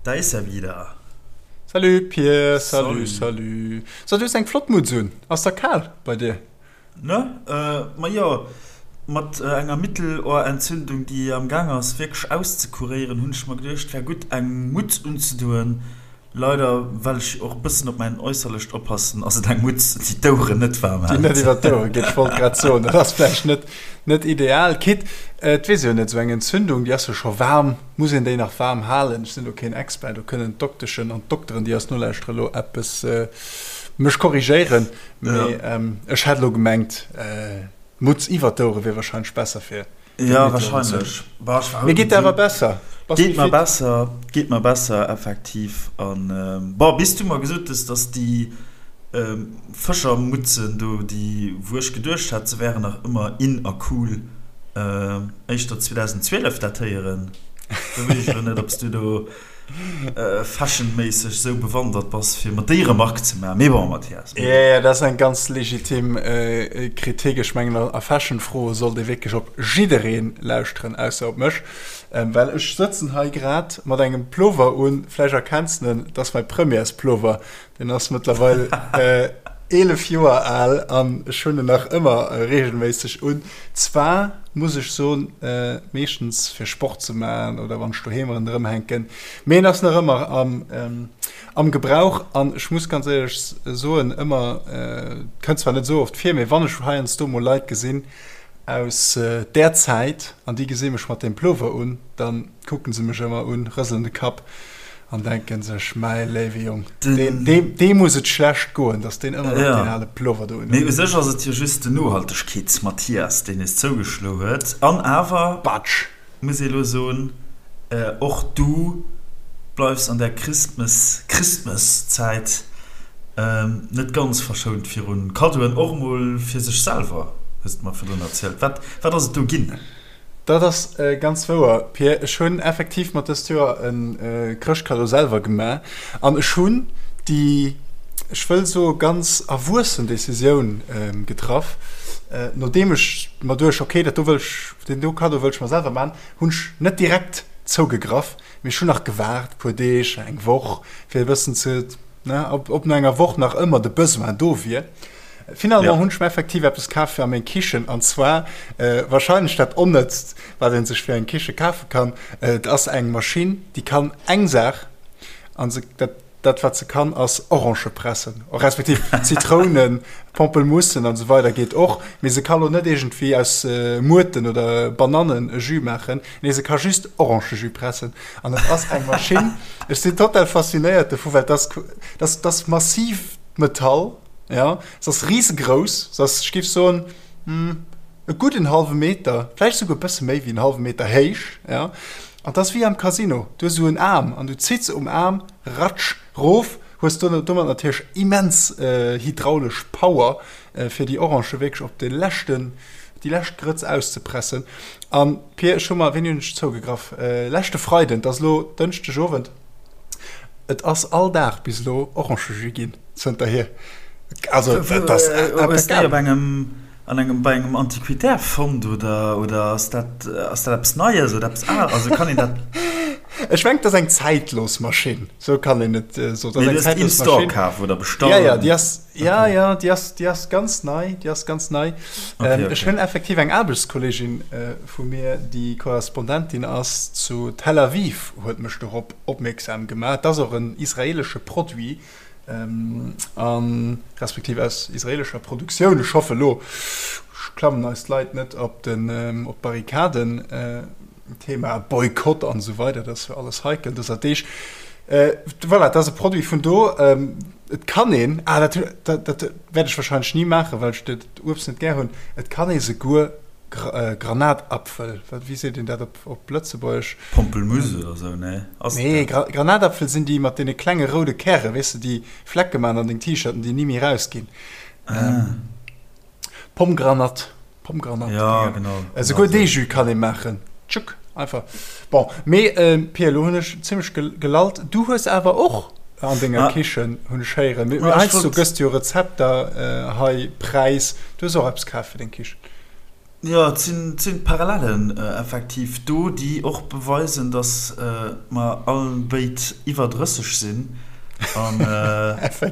Da ist er wieder. Salut Pir, salut, salut. So, du hues eng flott Mutz un. Ass der kal bei dir? Ne? Ma jo, mat enger Mittelohrentzündung, déi am Gaang ass wierklech auszekuréieren, hunn ech mer geduecht, wär gutt eng Mutz unzedoen. Leider, well ech och e bëssen op mäin Äusserlecht oppassen, ass et eng Mutz, déi d'Oueren net waarm hält. Déi net iwwer d'Ouere geet. Ech wollt grad soen, dat ass vläicht net, net ideal. Quitte, et weess ee jo net, esou eng Entzündung, déi ass jo scho waarm, muss een déi nach waarm halen? Ech sinn do keen Expert, do kënnen d'Dokteschen an d'Dokteren, déi eis nolauschteren, elo eppes mech korrigéieren, mee ech hätt elo gemengt, d'Mutz iwwer d'Ouere wier wahrscheinlech besser fir Ja, wahrscheinlech. Bah, ech war Mir geet awer besser. Bass Geet mer besser, geet mer besser, effektiv. An bon, bis du mer gesot hues, dass déi Fëschermutzen do, déi wou ech geduecht hat, se wären nach ëmmer in a cool, éischter 2012 datéieren, do weess ech elo net, ob s du do fashionméisseg sou bewandert bass, fir mer déi Remark ze maachen. Mee bon, Mathias, mee bon. Jo, dat ass eng ganz legitim Kritik. Ech mengen, a Fashion-Froe sollt ee wierklech op jidderee lauschteren, ausser op mech. Well ech sëtzen hei grad mat engem Plover un, vläicht erkenns de en, dat ass mäi Premières-Plover. Deen ass mëttlerweil 11 Joer al an ech hunn en nach ëmmer reegelméisseg un. Zwar muss ech soen, meeschtens fir Sport ze maachen oder wann ech doheem ronderëm hänken, mee en ass nach ëmmer am Gebrauch. An ech muss ganz éierlech soen, ëmmer, kënnt zwar net esou oft vir, mee wann ech heiansdo mol Leit gesinn aus där Zäit an déi gesi mech mat deem Plover un, dann kucken se mech ëmmer un, rëselen de Kapp an denken sech, Mäi léiwe Jong, deem muss et schlecht goen, datt deen ëmmer nach deen ale Plover do unhuet. Mee u sech ass et jo just den Nohaltegkeets-Mathias, deen es zougeschlo huet. An awer Batsch! muss ee lo soen, och du bleifs an der Christmas, Christmas-Zäit net ganz verschount virun Kaddoen, och emol fir sech selwer, hues de mer virdrun erzielt. Wat, wat ass et do ginn? Dat ass ganz wouer, Pir. Ech hunn effektiv mer dëst Joer e Chrëschtkaddo selwer gemaach an ech hunn déi, ech wëll soe ganz erwuessen Decisioun getraff, nodeem ech mer duecht, ok, dat do wëll ech, deen do Kaddo wëll ech mer selwer maachen, hunn ech net direkt zougegraff, mee ech hunn nach gewaart e puer Deeg, eng Woch, fir e bëssen ze, ne, ob no enger Woch nach ëmmer de Besoin do wier. Finalement hunn ech mir effektiv eppes kaf fir a meng Kichen, an zwar wahrscheinlech dat Onnëtzt, wat ee sech fir eng Kiche kafe kann. Et ass eng Maschinn, déi kann eng Saach, an se, dat, dat wat se kann, ass Orangë pressen, respektiv Zitrounen, Pampelmussen an esou weider geet och, mee se ka lo net iergendwéi aus Muerten oder Banannen e Jus maachen. Nee, se ka just Orangejus pressen. An et ass eng Maschinn, ech sinn total faszinéiert dovu, well dat ass, dat ass massiv Metall. Ja, se ass risegrouss, se ass, ech géif soen, e gudden hallwe Meter, vläicht esouguer e bësse méi wéi en hallwe Meter héich, ja. An 't ass wéi am Casino, du hues esou en Aarm an du zitts um Aarm, ratsch, rof, hues domat natierlech immens hydraulesch Power, fir déi Orange wierklech op de leschten, déi lescht Grëtz auszepressen. An Pir, ech hu mer, wéini hunn ech zougegraff? Leschte Freiden, 't ass elo Dënschdegowend. Et ass all Dag bis elo Orangejus ginn zënterhier. Also dat ass Hues de déi op engem, an engem, bei engem Antiquitaire fonnt oder, oder ass dat, ass dat eppes Neies oder eppes Al, also kann een dat. Ech mengen, et ass eng zäitlos Maschinn, sou kann een et soen. Mee du hues déi in store kaf oder bestallt? Ja, ja, déi ass, ja, ja, déi ass, déi ass ganz nei, déi ass ganz nei. Okay, okay. Ech hunn effektiv eng Aarbechtskolleegin vu mir, déi Korrespondentin ass zu Tel Aviv, huet mech dorop opmierksam gemaach. Et ass och en israeelesche Produit, a respektiv aus israeelescher Produktioun. Ech hoffe elo klammen eis d'Leit net op den, op d'Barrikaden. Thema Boykott an esou weider, dat ass jo alles heikel dëser Deeg. Voilà, dat ass e Produit vun do. Et kann een, ah dat, dat, dat wäert ech wahrscheinlech ni maachen, well ech dat Uebst net gär hunn, et kann ee souguer Granatapfel, wat, wéi seet een dat op, op Lëtzebuergesch? Pampelmusse oder sou, nee? Ass et Nee, dat? Granatapfel sinn déi mat deene klenge roude Käre, weess de, déi Flecke maachen an deng T-Shirten, déi ni méi rausginn. Ah. Pomgranat. Pomgranat. Ja, genau. Esouguer dee Jus kann ee maachen. Tschuk, einfach. Bon, mee Pia, elo hunn ech zimmlech gelallt. Du hues awer och an denger Kichen, hunn ech héieren. Mee heiansdo gëss du jo Rezepter hei präis. Du hues och eppes kaf fir deng Kichen. Jo, et sinn, et sinn Parallellen effektiv do, déi och beweisen, datt mer all béid iwwer 30 sinn an datt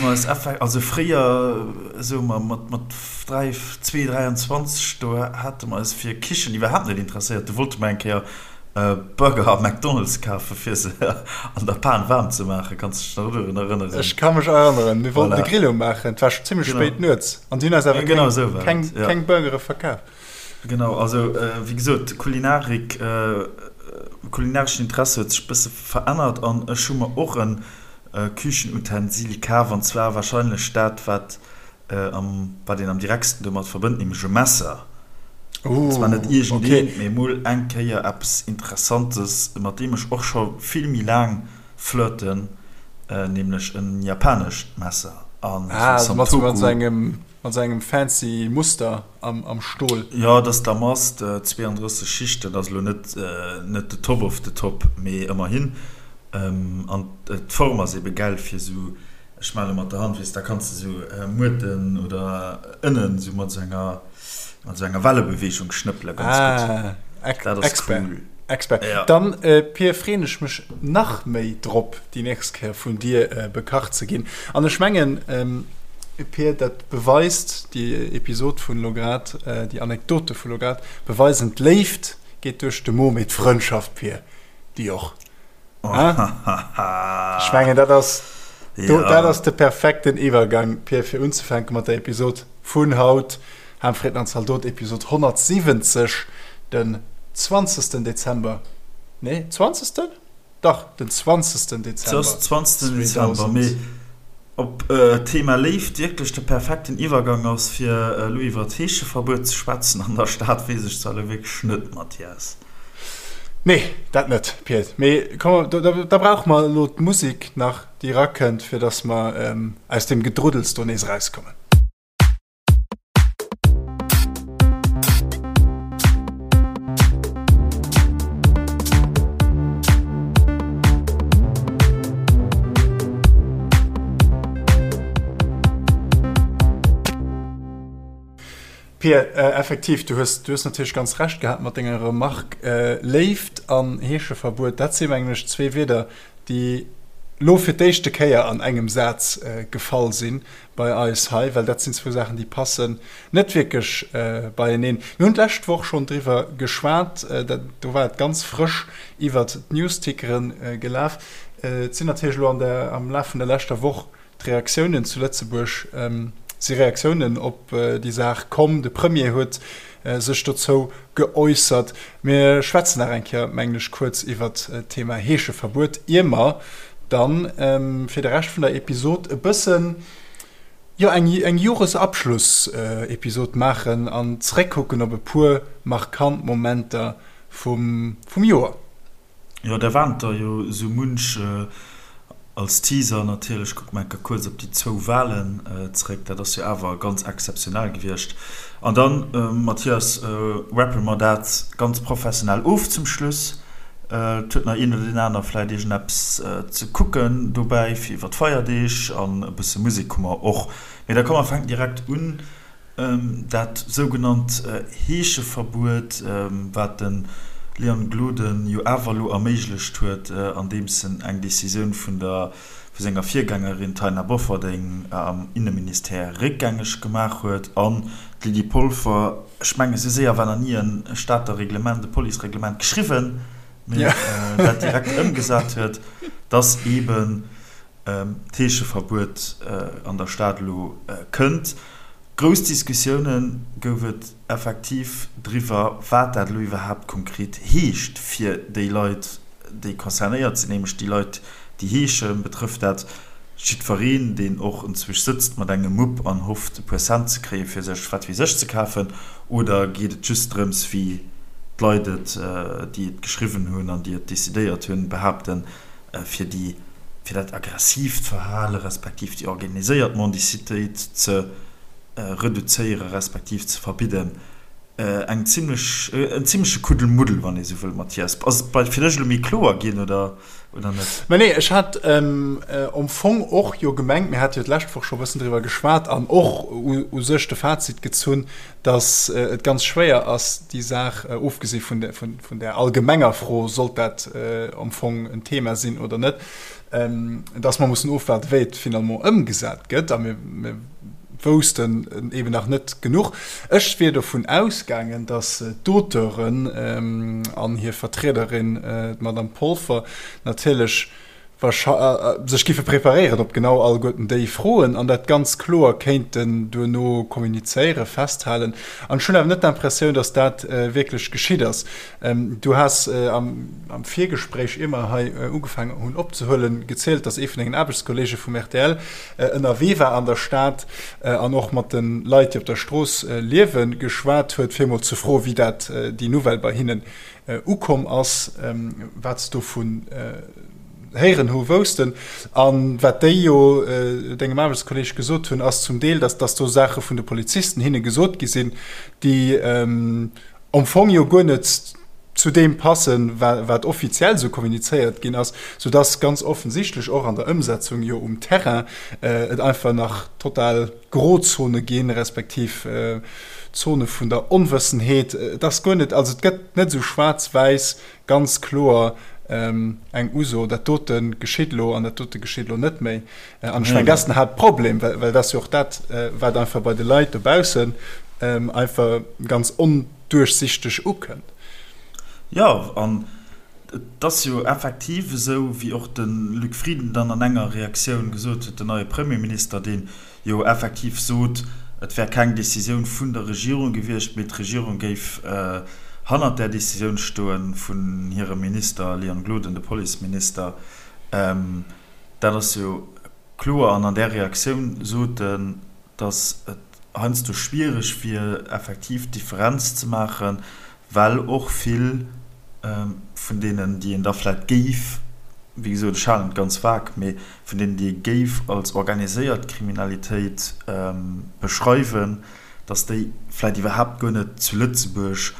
mer eis effek-, also fréier, soe mer mat, mat 3, 2, 23, do hate mer eis fir Kichen iwwerhaapt net interesséiert. Do wollte mer eng Kéier Burger am McDonald's kafen, fir se an der Pan waarm ze maachen. Kanns de dech nach dorun erënneren? Ech ka mech erënneren. Mir wollten de Grill umaachen. Et war scho zimmlech spéit nuets an si hunn eis awer keng Burgere verkaf. Genau, also wéi gesot, Kulinarik, kulinareschen Interesse huet sech e bësse verännert an ech hu mer och e Küchenutensil kaf an zwar warscheinlech dat, wat wat een am direktsten domat verbënnt, nämlech e Messer. An zwar net iergendeent, mee emol eng Kéier eppes Interessantes, mat deem ech och scho vill méi laang flirten, nämlech en japanescht Messer. Ah, also mat esou engem, mat esou engem fancy Muster am Stol. Jo, et ass Damast, 32 Schichten, ass elo net, net de Top of the Top, mee ëmmerhin. An d'Form ass ebe gäil fir esou Ech male mat der Hand, weess, da kanns de sou Muerten oder Ënnen sou mat sou enger, mat sou enger Wellebeweegung schnëppele ganz gutt. Ah, Dat ass Expert. cool. Expert. Ja. Dann, Pir, freen ech mech nach méi drop, déi nächst Kéier vun dir bekacht ze ginn. An ech mengen, Pir, dat beweist, déi Episod vun elo grad, déi Anekdote vu lo grad beweisen, d'Léift geet duerch de Mo, mee d'Frëndschaft, Pir, déi och. Ech mengen dat ass do, dat ass de perfekten Iwwergang Pir fir unzefänke mat der Episod vun haut. Ham, Fritten an Zaldot Episod 170 den 20. Dezember. Nee 20. Dach den 20. Dezember 20. Dezember mee ob d'Thema Léift wierklech de perfekten Iwwergang ass fir elo iwwer d'Heescheverbuet ze schwätzen an der Stad weess ech zwar elo wierklech net Mathias. Nee, dat net, Piet. Mee komm, da brauche mer elo d'Musek nach, déi erakënnt, fir datt mer aus deem Gedruddels do nees erauskommen. Pia, effektiv, du hues, du hues natierlech ganz Recht gehat mat denger Remark. Léift an Heescheverbuet, dat si mengen ech zwee Wierder, déi lo fir d'éischte Kéier an engem Saz gefall si bei eis hei, well dat sinn zwou Saachen, déi passen net wierklech beieneen. Mir hunn d'lescht Woch schonn driwwer geschwat, do war et ganz frësch iwwert d'Newstickere gelaf. Et sinn natierlech elo an der, am Laf vun der leschter Woch D'Reaktiounen zu Lëtzebuerg si Reaktiounen op déi Saach komm. De Premier huet sech dozou geäussert. Mir schwätzen nach eng Kéier, mengen ech, kuerz iwwert d'Thema Heescheverbuet, ier mer dann fir de Rescht vun der Episod e bëssen, jo, eng Joresabschlussepisod maachen an zréckkucken op e puer markant Momenter vum Joer. Jo, da waren der jo esou munch. Als Teaser natierlech, kucke mer enker kuerz op déi zwou Walen zréck. Dat ass jo awer ganz exzeptionell gewiescht. An dann, Mathias, wrappe mer dat ganz professionell of zum Schluss. Et huet nach een oder deen aner vläicht iergendeppes ze kucken dobäi fir iwwer d'Feierdeeg. An e bësse Musek hu mer och. Mee da komm mer fänken direkt un. Dat sougenannt Heescheverbuet, wat de Leon Gloden jo awer elo erméiglecht huet, andeems en eng Decisioun vun der vu senger Virgängerin Taina Bofferding am Inneministère réckgängeg gemaach huet an d'Lydie Polfer, ech mengen, esou séier war nach ni e Stater Reglement, e Policereglement geschriwwen, mee dat direkt ëmgesat huet, datt eeben d'Heescheverbuet an der Stad elo kënnt. Grouss Diskussioune gouf et effektiv driwwer, wat dat elo iwwerhaapt konkret heescht fir déi Leit, déi concernéiert sinn, nämlech déi Leit, déi heeschen. Betrëfft dat jiddwereen, deen och enzwousch sëtzt mat engem Mupp an hofft, e puer Cent ze kréien, fir sech wat weess ech ze kafen? Oder geet et just drëms, wéi d'Leit et, déi et geschriwwen hunn an déi et decidéiert hunn, behaapten, fir déi, fir dat aggressiivt Verhale respektiv déi organiséiert Mendicitéit ze reduzéiere respektiv ze verbidden, eng zimlech, en zimleche Kuddelmuddel, wann ee sou wëll. Mathias, ass et bei fir dech elo méi kloer ginn oder, Oder net? Mä nee, ech hat am Fong och jo gemengt, mir hate jo d'lescht Woch scho e bëssen driwwer geschwat an och u sech de Fazit gezunn, datt et ganz schwéier ass, déi Saach, ofgesi vun där allgemenger Fro, sollt dat am Fong en Thema sinn oder net, datt mer mussen ofwaarden, wéi et finalement ëmgesat gëtt. A mir woussten eben nach net genuch. Ech wier dovun ausgaangen, datt d'Auteuren an hir Vertriederin, d'Madame Polfer, natierlech sech giffe preparéieren op genau alleguerten déi Froen an dat ganz kloer kéinten duerno kommunizéieren, festhalen. An ech hunn awer net d'Impressioun, datt dat wierklech geschitt ass. Du has am Virgespréich, ier mer hei ugefaangen hunn opzehuelen, gezielt, datt ee vun dengen Aarbechtskolleege vum rtl ënnerwee war an der Stad an och mat de Leit, déi op der Strooss liewen, geschwat huet, fir emol ze froen, wéi dat déi Nouvelle bei hinnen ukomm ass, wat se dovun héieren hu woussten. A wat déi jo dengem Aarbechtskolleeg gesot hunn, ass zum Deel, datt do Saache vun de Polizisten hinne gesot gi sinn, déi am Fong jo guer net zu deem passen, wat offiziell esou kommunizéiert ginn ass, soudass ganz offensichtlech och an der Ëmsetzung jo um Terrain et einfach nach total Grozone ginn, respektiv Zone vun der Onwëssenheet. Et ass guer net, also et gëtt net esou schwaarz-wäiss ganz kloer eng Uso, dat dote geschitt elo an dat dote geschitt elo net méi. An ech mengen, dat ass den Haaptproblem, well dat ass jo och dat, wat einfach bei de Leit dobaussen einfach ganz onduerchsichteg ukënnt. Jo, an et ass jo effektiv esou, wéi och de Luc Frieden dann an enger Reaktioun gesot huet, den neie Premierminister, dee jo effektiv sot, et wär keng Decisioun vun der Regierung gewiescht, mee d'Regierung géif hannert där Decisioun stoen vun hirem Minister Leon Gloden, de Policeminister. Dat ass jo kloer. An an där Reaktioun sot en, datt et heiansdo schwiereg wier, effektiv d'Differenz ze maachen, well och vill vun deenen, déi een da vläicht géif, wéi gesot, ech halen et ganz vag, mee vun deenen, déi ee géif als organiséiert Kriminalitéit beschreiwen, datt déi vläicht iwwerhaapt guer net zu Lëtzebuerg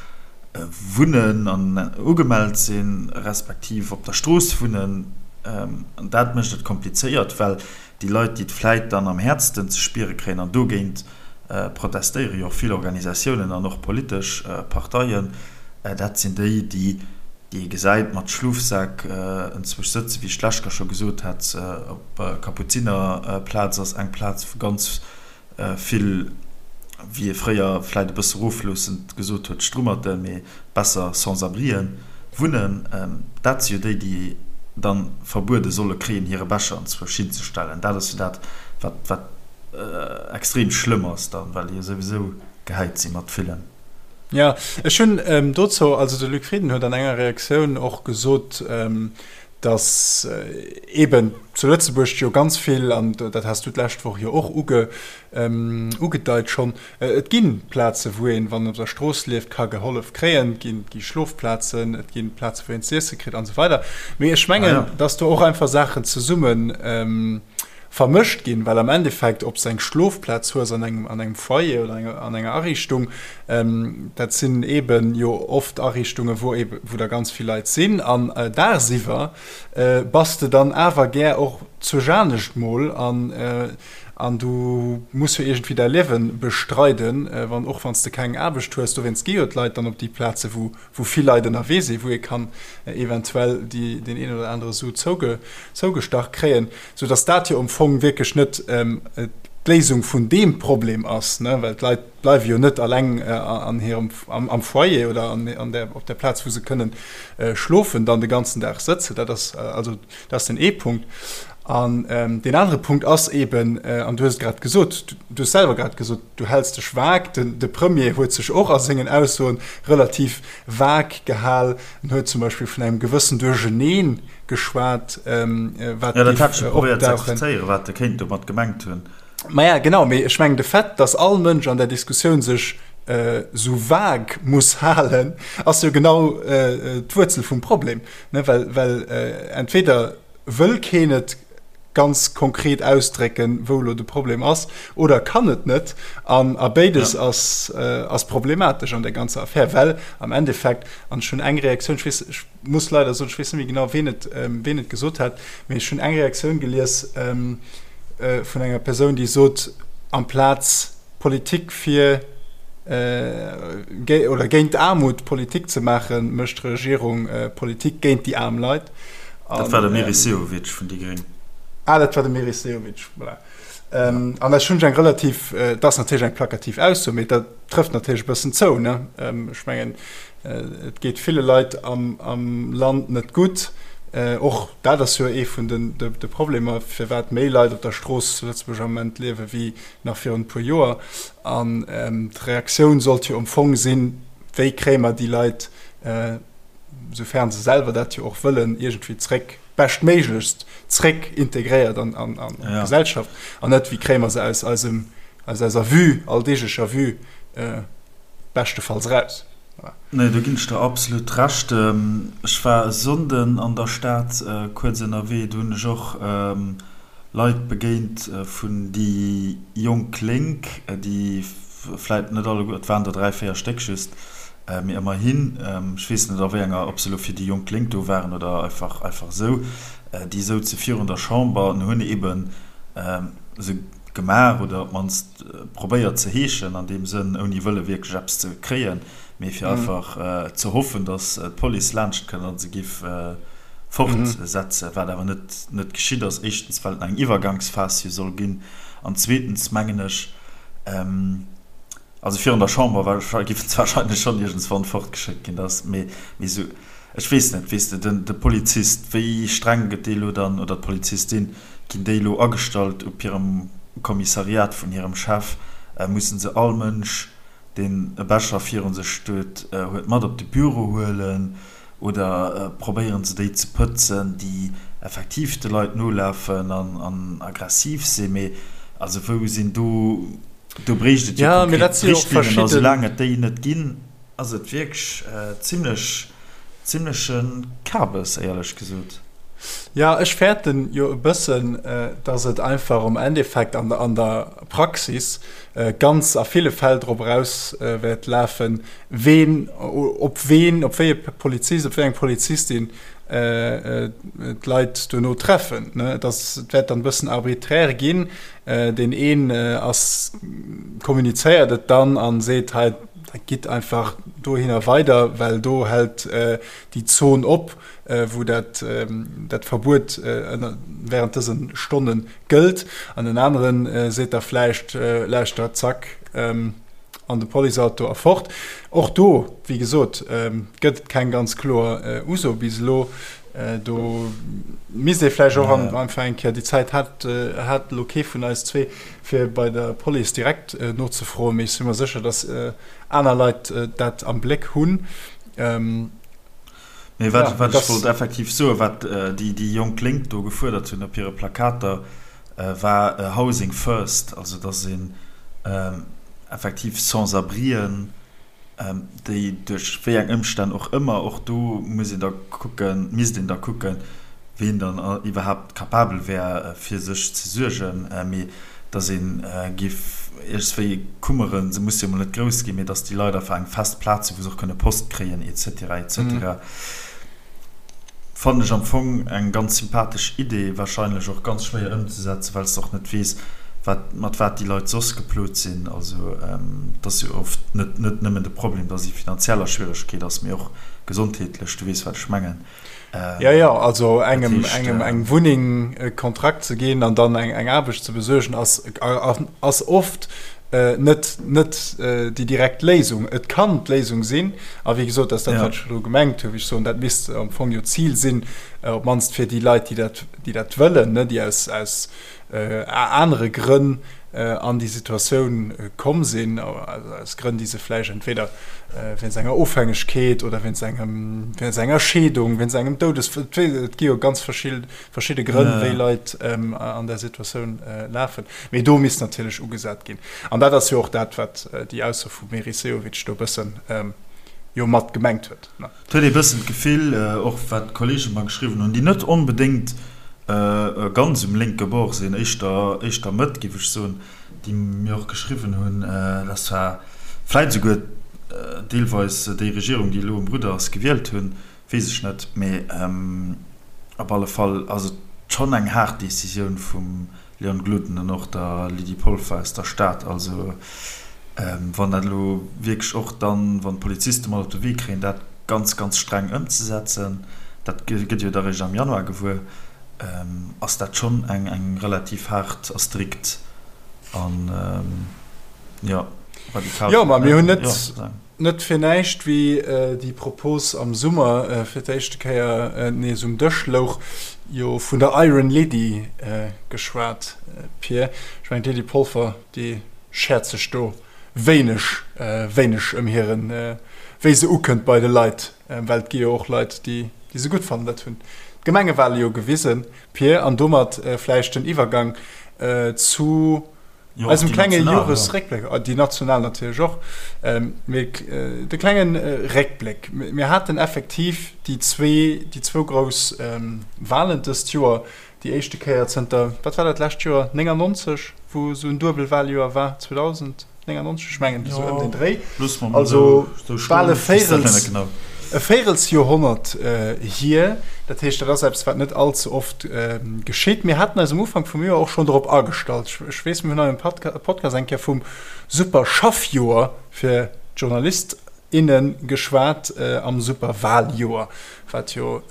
wunnen an ugemellt sinn, respektiv op der Strooss wunnen. An dat mécht et komplizéiert, well déi Leit, déi et vläicht dann am häertsten ze spiere kréien, an dogéint protestéiere jo och vill Organisatiounen an och politesch Parteien, dat sinn déi, déi ee gesäit mat Schlofsäck enzwousch sëtzen, wéi ech d'lescht Kéier scho gesot hat, op Kapuzinerplaz ass eng Plaz, wou ganz Vill, wéi ee fréier vläit e bësse rofloossend gesot huet, Strummerten, mee besser Sans-abrien wunnen. Dat si jo déi, déi dann verbuede solle kréien, hire Becher anzwousch hinzestellen. Dat ass jo dat, wat, wat extrem schlëmm ass dann, well déi jo souwisou gehäit si mat villen. Jo, ech hunn dozou, also de Luc Frieden huet an enger Reaktioun och gesot, datt eeben zu Lëtzebuerg jo ganz vill, an dat has du d'lescht Woch jo och ugedeit schonn, et gi Plaze wou een, wann een op der Strooss lieft, ka gehollef kréien, et gi Schlofplazen, et gi Plaze wou een z'iesse kritt an esou weider. Mee ech mengen, datt do och einfach Saachen zesumme vermëscht ginn, well am Endeffekt, ob s de eng Schlofplaz hues an engem an engem Foyer oder enger an enger Ariichtung, dat sinn eeben jo oft Ariichtungen, wou eebe wou da ganz vill Leit sinn an dagsiwwer bass de dann awer gär och zu Janescht mol an an du muss jo iergendwéi däi Liewe bestreiden, wann och wann s de keng Aarbecht hues. Dowéinst gi jo d'Leit dann op déi Plaze wou wou vill Leit ënnerwee sinn, wou ee kann eventuell déi, deen een oder anere Su zouge, zougestach kréien, soudass dat jo am Fong wierklech net d'Léisung vun deem Problem ass, ne, well d'Leit bleiwe jo net alleng an hirem, am, am Foyer oder an, an der, op der Plaz, wou se kënnen schlofen, dann de ganzen Dag sëtzen. Dat ass also, dat ass den ee Punkt. An deen anere Punkt ass eeben, an du hues et grad gesot, du hues selwer grad gesot, Du häls dech vag. De Premier huet sech och a sengen Aussoen relativ vag gehal. En huet zum Beispill vun engem gewëssen Duercheneen geschwat, wat géif opdauchen. Jo, dat hat ech jo probéiert ze explizéieren, wat e kéint domat gemengt hunn. Maja, genau, mee ech mengen, de Fait, datt all Mënsch an där Diskussioun sech esou vag muss halen, ass jo genau d'Wuerzel vum Problem, ne? Well entweder wëll keen et. ganz konkret ausdrécken, wou elo de Problem ass, oder kann et net. An a béides ass, ass problematesch an där ganzer Affär, well am Endeffekt, an ech hunn eng Reaktioun, ech weess, ech muss leider soen, ech weess net méi genau, ween et, ween et gesot hat, mee ech hunn eng Reaktioun gelies vun enger Persoun, déi sot, amplaz Politik fir oder géint d'Aarmut Politik ze maachen, mécht d'Regierung Politik géint déi aarm Leit. Dat war de Meris Sehovic vun déi Gréng. Ah, dat war de Meris Sehovic, voilà. An ech hunn eng relativ, dat ass natierlech eng plakativ Ausso, mee dat trëfft natierlech e bëssen zou, ne? Ech mengen, et geet ville Leit am Land net gutt. Och dat ass jo ee vun de Problemer, firwat méi Leit op der Strooss zu Lëtzebuerg am Moment liewe wéi nach virun e puer Joer. An d'Reaktioun sollt jo am Fong sinn, Wéi kréie mer déi Leit, soufern se selwer dat jo och wëllen, iergendwéi zréck, beschtméiglechst zréck integréiert an d'Gesellschaft? An net, wéi kréie mer se aus eisem, aus eiser Vue, alldeeglecher Vue, beschtefalls eraus? Nee, do ginn ech der absolut Recht. Ech war e Sonnden an der Stad kuerz ënnerwee, do hunn ech och Leit begéint vun déi jonk Lénk, déi vläit net alleguer, et waren der 3, 4 Stéck just, mee ëmmerhin, ech weess net a wéi enger, ob se elo fir déi jonk Lénk do waren oder einfach einfach esou, déi souze virun der Chamber an hunn eeben se gemaach oder op d'mannst probéiert ze heeschen an deem Sënn, ouni wëlle wierklech eppes ze kréien, mee fir einfach ze hoffen, datt d'Police laanscht kënnt a se giff fortsetzen, wat awer net net geschitt ass, éischtens well et nach eng Iwwergangsphas jo soll ginn an zweetens mengen ech, also virun der Chamber géifen se wahrscheinlech schonn iergendswann fortgeschéckt ginn, dass, mee esou, ech weess net, weess de, den de Polizist, wéi streng gëtt dee lo dann, oder d'Polizistin, ginn déi elo agestallt op hirem Kommissariat vun hirem Chef, mussen se all Mënsch, deen e Becher virun sech huet, huet mat op de Büro huelen? Oder probéieren se déi ze pëtzen, déi effektiv de Leit nolafen an aggressiv sinn? Mee also wou sinn do, do bréicht et jo konkret Richtlinnen a soulaang et déi net ginn, ass et wierklech zimlech, zimleche Kabes, éierlech gesot. Jo, ech fäerten jo e bëssen, datt et einfach am Endeffekt an der Praxis ganz a ville Fäll drop eraus wäert lafen, ween, op ween, op wéi e Polizist, op wéi eng Polizistin d'Leit duerno treffen. Et ass, et wäert dann e bëssen arbiträr ginn. Deen een ass, kommunizéiert et dann a seet, hei, gitt einfach dohinner weider, well do hält déi Zon op, wou dat, dat Verbuet während dëse Stonne gëllt. An en anere seet da vläicht, lauschtert, zack, an de Policeauto a fort. Och do, wéi gesot, gëtt et keng ganz kloer Uso bis elo. Do misst ee vläicht och einfach eng Kéier, déi Zäit hat hat elo kee vun eis zwee, fir bei der Police direkt nozefroen, mee ech si mer sécher, datt aner Leit dat am Bléck hunn. Mee wat ech wollt effektiv soen, wat déi jonk Lénk do gefuerdert hunn op hire Plakater, war Housing first, also datt een effektiv Sans-abrien, déi duerch wéi eng Ëmstänn och ëmmer, och do muss een da kucken, misst een da kucken, ween dann iwwerhaapt capabel wär fir sech ze suergen, mee datt ee géif iergendswéi kummeren, se musse jo mol net grouss ginn, mee datt déi Leit einfach eng fest Plaz hunn, wou se och kënne Post kréien et cetera et cetera. Fannen ech am Fong eng ganz sympathesch Idee, wahrscheinlech och ganz schwéier ëmzesetzen, well s de och net weess, wat, mat wat déi Leit soss geplot sinn. Also et ass jo oft net, net nëmmen de Problem, dass ee finanziell a Schwieregkeet ass, mee och gesondheetlech, du weess wat ech mengen. Jo, jo, also engem, engem eng Wunneng, e Kontrakt ze ginn an dann eng, eng Aarbecht ze besuergen, ass, ass oft net net déi direkt Léisung. Et kann d'Léisung sinn, a wéi gesot, dat ass dat, wat ech elo gemengt hunn, wéi ech soen, dat misst am Fong jo d'Zil sinn, op d'mannst fir déi Leit, déi dat, déi dat wëllen, ne, déi aus, aus anere Grënn an déi Situatioun komm sinn, aus Grënn, déi se vläicht entweder wéinst enger Ofhängegkeet oder wéinst engem, wéinst enger Scheedung, wéinst engem Doudesfall, et gi jo ganz verschidde verschidde Grënn, wéi Leit an där Situatioun lafen. Mee do misst natierlech ugesat ginn. An dat ass jo och dat, wat déi Ausso vum Meris Sehovic do e bëssen jo mat gemengt huet. Et huet ee bëssen d'Gefill, och wat d'Kollege mer geschriwwen hunn, déi net onbedéngt. Ganz um lénke Bord sinn, éischter, éischter Mëtt, géif ech soen, déi mir och geschriwwen hunn, dass zwar vläit esouguer deelweis déi Regierung, déi elo um Rudder ass, gewielt hunn, weess ech net, mee op alle Fall ass et schonn eng haart Decisioun vum Leon Gloden an och der Lydie Polfer aus der Stad. Also wann dat elo wierklech och dann, wann d'Poliziste mat op de Wee kréien, dat ganz, ganz streng ëmzesetzen, dat gëtt jo da réischt am Januar gewuer, ass dat schonn eng relativ haart a strikt an, jo, radikal. Jo, ma mir hunn net, net fir näischt, wéi déi Propos am Summer fir d'éischte Kéier nees um Dësch louch, jo vun der Iron Lady geschwat, Pir. Ech mengen, d'Lydie Polfer, déi schäert sech do wéineg, wéineg ëm hiren, wéi se ukënnt bei de Leit, well et gi jo och Leit, déi déi se gutt fannen. Dat hunn d'Gemengewale jo gewisen, Pir. An domat vläicht den Iwwergang zu eisem klenge Joresréckbléck, déi national natierlech och, mee de klenge Réckbléck. Mir haten effektiv déi zwee, déi zwou grouss Walen dëst Joer, déi éischte Kéier zënter, wat war dat lescht Joer, 99, wou esou en Duebelwaljoer war, 2099, ech mengen esou ëm den Dréi, also bal e Véirels, e Véirelsjoerhonnert hier. Dat heescht, dat ass eppes, wat net all ze oft geschitt. Mir haten eis um Ufank vum Joer och schonn dorop agestallt. Ech weess, mir hunn hei um Podcast eng Kéier vum super Schaffjoer fir d'Journalist, inne geschwat am Superwaljoer, wat jo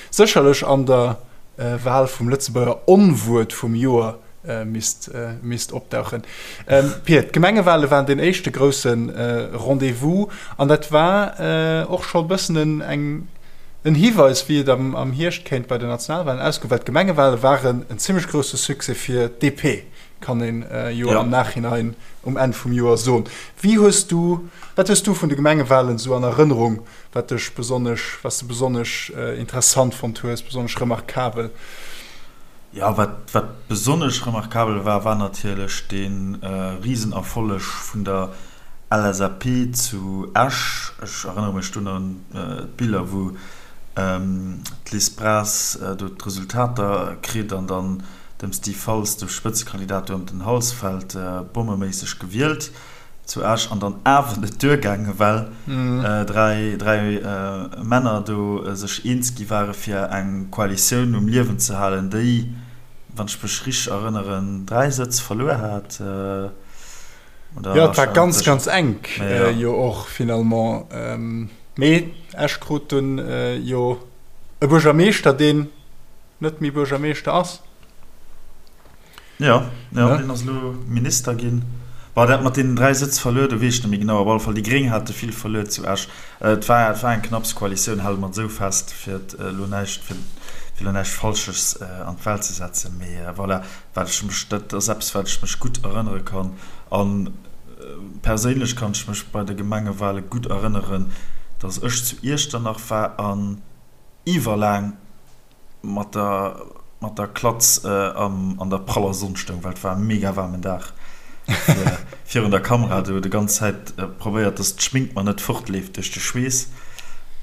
sécherlech an der Wal vum Lëtzebuerger Onwuert vum Joer misst opdauchen. Pir, d'Gemengewale waren deen éischte grousse Rendez-vous an dat war och scho e bëssen en Hiweis, wéi et am Hierscht kéint bei den Nationalwalen ausgoen, well d'Gemengewale waren en zimmlech grousse Succès fir d'DP. kann een jo am Nachhinein um Enn vum Joer soen. Wéi hues du, wat hues du vun de Gemengewahlen esou an Erënnerung, wat dech besonnesch, wat s de besonnesch interessant fonnt hues, besonnesch remarkabel? Jo, wat, wat besonnesch remarkabel war, war natierlech dee Risenerfolleg vun der LSAP zu Esch. Ech erënnere mech dunn un d'Biller, wou d'Liz Braz do d'Resultater kritt an dann dem Steve Faltz, dem Spëtzekandidat, do ëm den Hals fält, bommeméisseg gewielt zu Esch an dann awer net duergaangen, well 3 Männer do sech eens gi ware fir eng Koalitioun um Liewen ze halen, déi, wann ech mech richteg erënneren, 3 Sëtz verluer hat. Jo, et war ganz, ganz enk jo och finalement. Mee Esch krut dunn jo e Buergermeeschter, deen net méi Buergermeeschter ass. Jo, jo, deen ass elo Minister ginn. Bon, dat mat deenen 3 Sëtz verluer, do weess ech net méi genau. Op alle Fall, déi Gréng hate vill verluer zu Esch. Et war, et war eng knapps Koalitioun, hale mer et esou fest, fir et elo näischt, fir elo näischt Falsches an d'Welt ze setzen. Mee voilà, Wat ech mech, dat ass eppes, wat ech mech gutt erënnere kann. A perséinlech kann ech mech bei de Gemengewale gutt erënneren, datt ech zu Iechternach war an iwwerlaang mat der, mat der Klatz an der praller Sonn stoung, well et war e mega waarmen Dag, fir virun der Kamera do déi ganz Zäit probéiert, datt d'Schmink mer net fortleeft duerch de Schweess.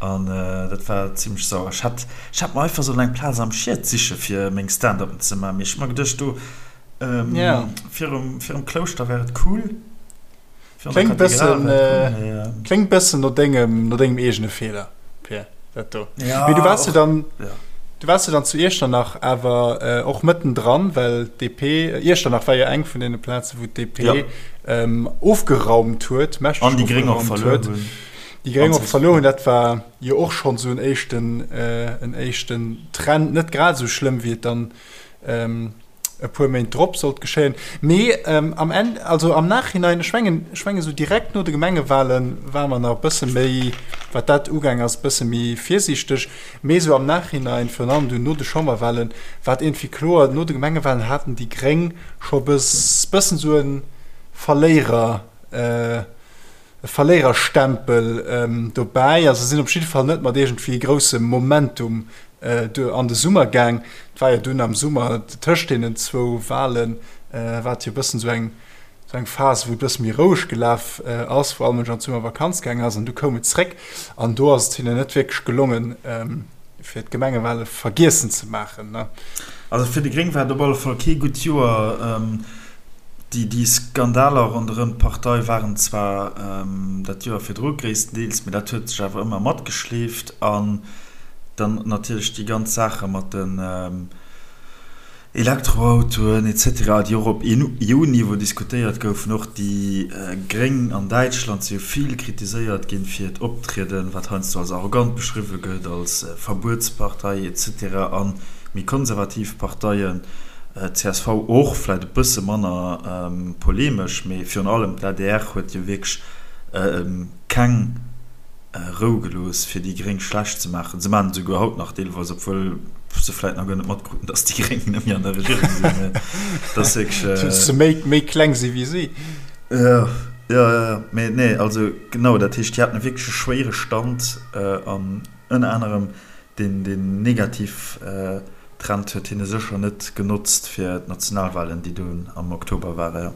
An dat war zimmlech sauer. Ech hat Ech hätt mer einfach sollen eng Plaz am Schied siche fir meng Stand-upen ze man, mee ech hu mer geduecht do virum virum Klouschter wär et cool. Kléngt bëssen kléngt bëssen no dengem no dengem eegene Feeler, Pir, dat do. Mee du waars jo dann du waars jo dann zu Iechternach awer och mëttendran, well d'DP Iechternach war jo eng vun deene Plaze wou d'DP ofgeraumt huet, mächteg ofgeraumt huet. Déi Gréng och verluer hunn, dat war jo och schonn esou en éischten, en éischten Trend, net grad esou schlëmm wéi et dann e puer Méint drop sollt geschéien. Mee am Enn, also am Nachhinein, ech mengen, ech mengen esou direkt no de Gemengewale ware mer nach e bësse méi, wat dat ugaang ass, e bësse méi virsiichteg. Mee esou am Nachhinein, virun allem dunn no de Chamberwalen, war et iergendwéi kloer, no de Gemengewalen haten déi Gréng scho e bëssen esou e Verléierer, e Verléiererstempel dobäi. Also se sinn op jidde Fall net mat iergendwéi groussem Momentum an de Summer gaang. Et war jo dunn am Summer tëscht deenen zwou Walen, war et jo e bëssen esou eng, esou eng Phas, wou et e bësse méi roueg gelaf ass, wou all Mënsch an d'Summervakanz gaang ass an du koum et zréck an do ass et hinnen net wierklech gelongen. fir d'Gemengewale vergiessen ze maachen, ne? Also fir déi Gréng war et op alle Fall kee gutt Joer. Déi Skandaler ronderëm d'Partei waren zwar dat Joer virdru gréisstendeels, mee dat huet sech awer ëmmer matgeschleeft. An dann natierlech déi ganz Saache mat den Elektroautoen etc, déi och op EU-Niveau diskutéiert goufen. Och déi Gréng an Däitschland si jo vill kritiséiert ginn fir hiert Optrieden, wat heiansdo als arrogant beschriwwe gëtt, als Verbuetspartei etc. A méi konservativ Parteien, csv och vläicht e bësse manner polemesch, mee virun allem d'ADR huet jo wierklech keng Rou gelooss, fir déi Gréng schlecht ze maachen. Se maachen et esouguer haut nach deelweis, obwuel se vläicht nach guer net matkruten, datt déi Gréng net méi an der Regierung sinn. Mee dat ass wierklech. Datt se méi, méi kleng si wéi si. Jo, jo, jo. Mee nee, also genau, dat heescht, déi haten e wierklech e schwéiere Stand an ënner anerem deen, deen negativ Trend huet hinne sécher net genotzt fir d'Nationalwalen, déi dunn am Oktober waren, jo.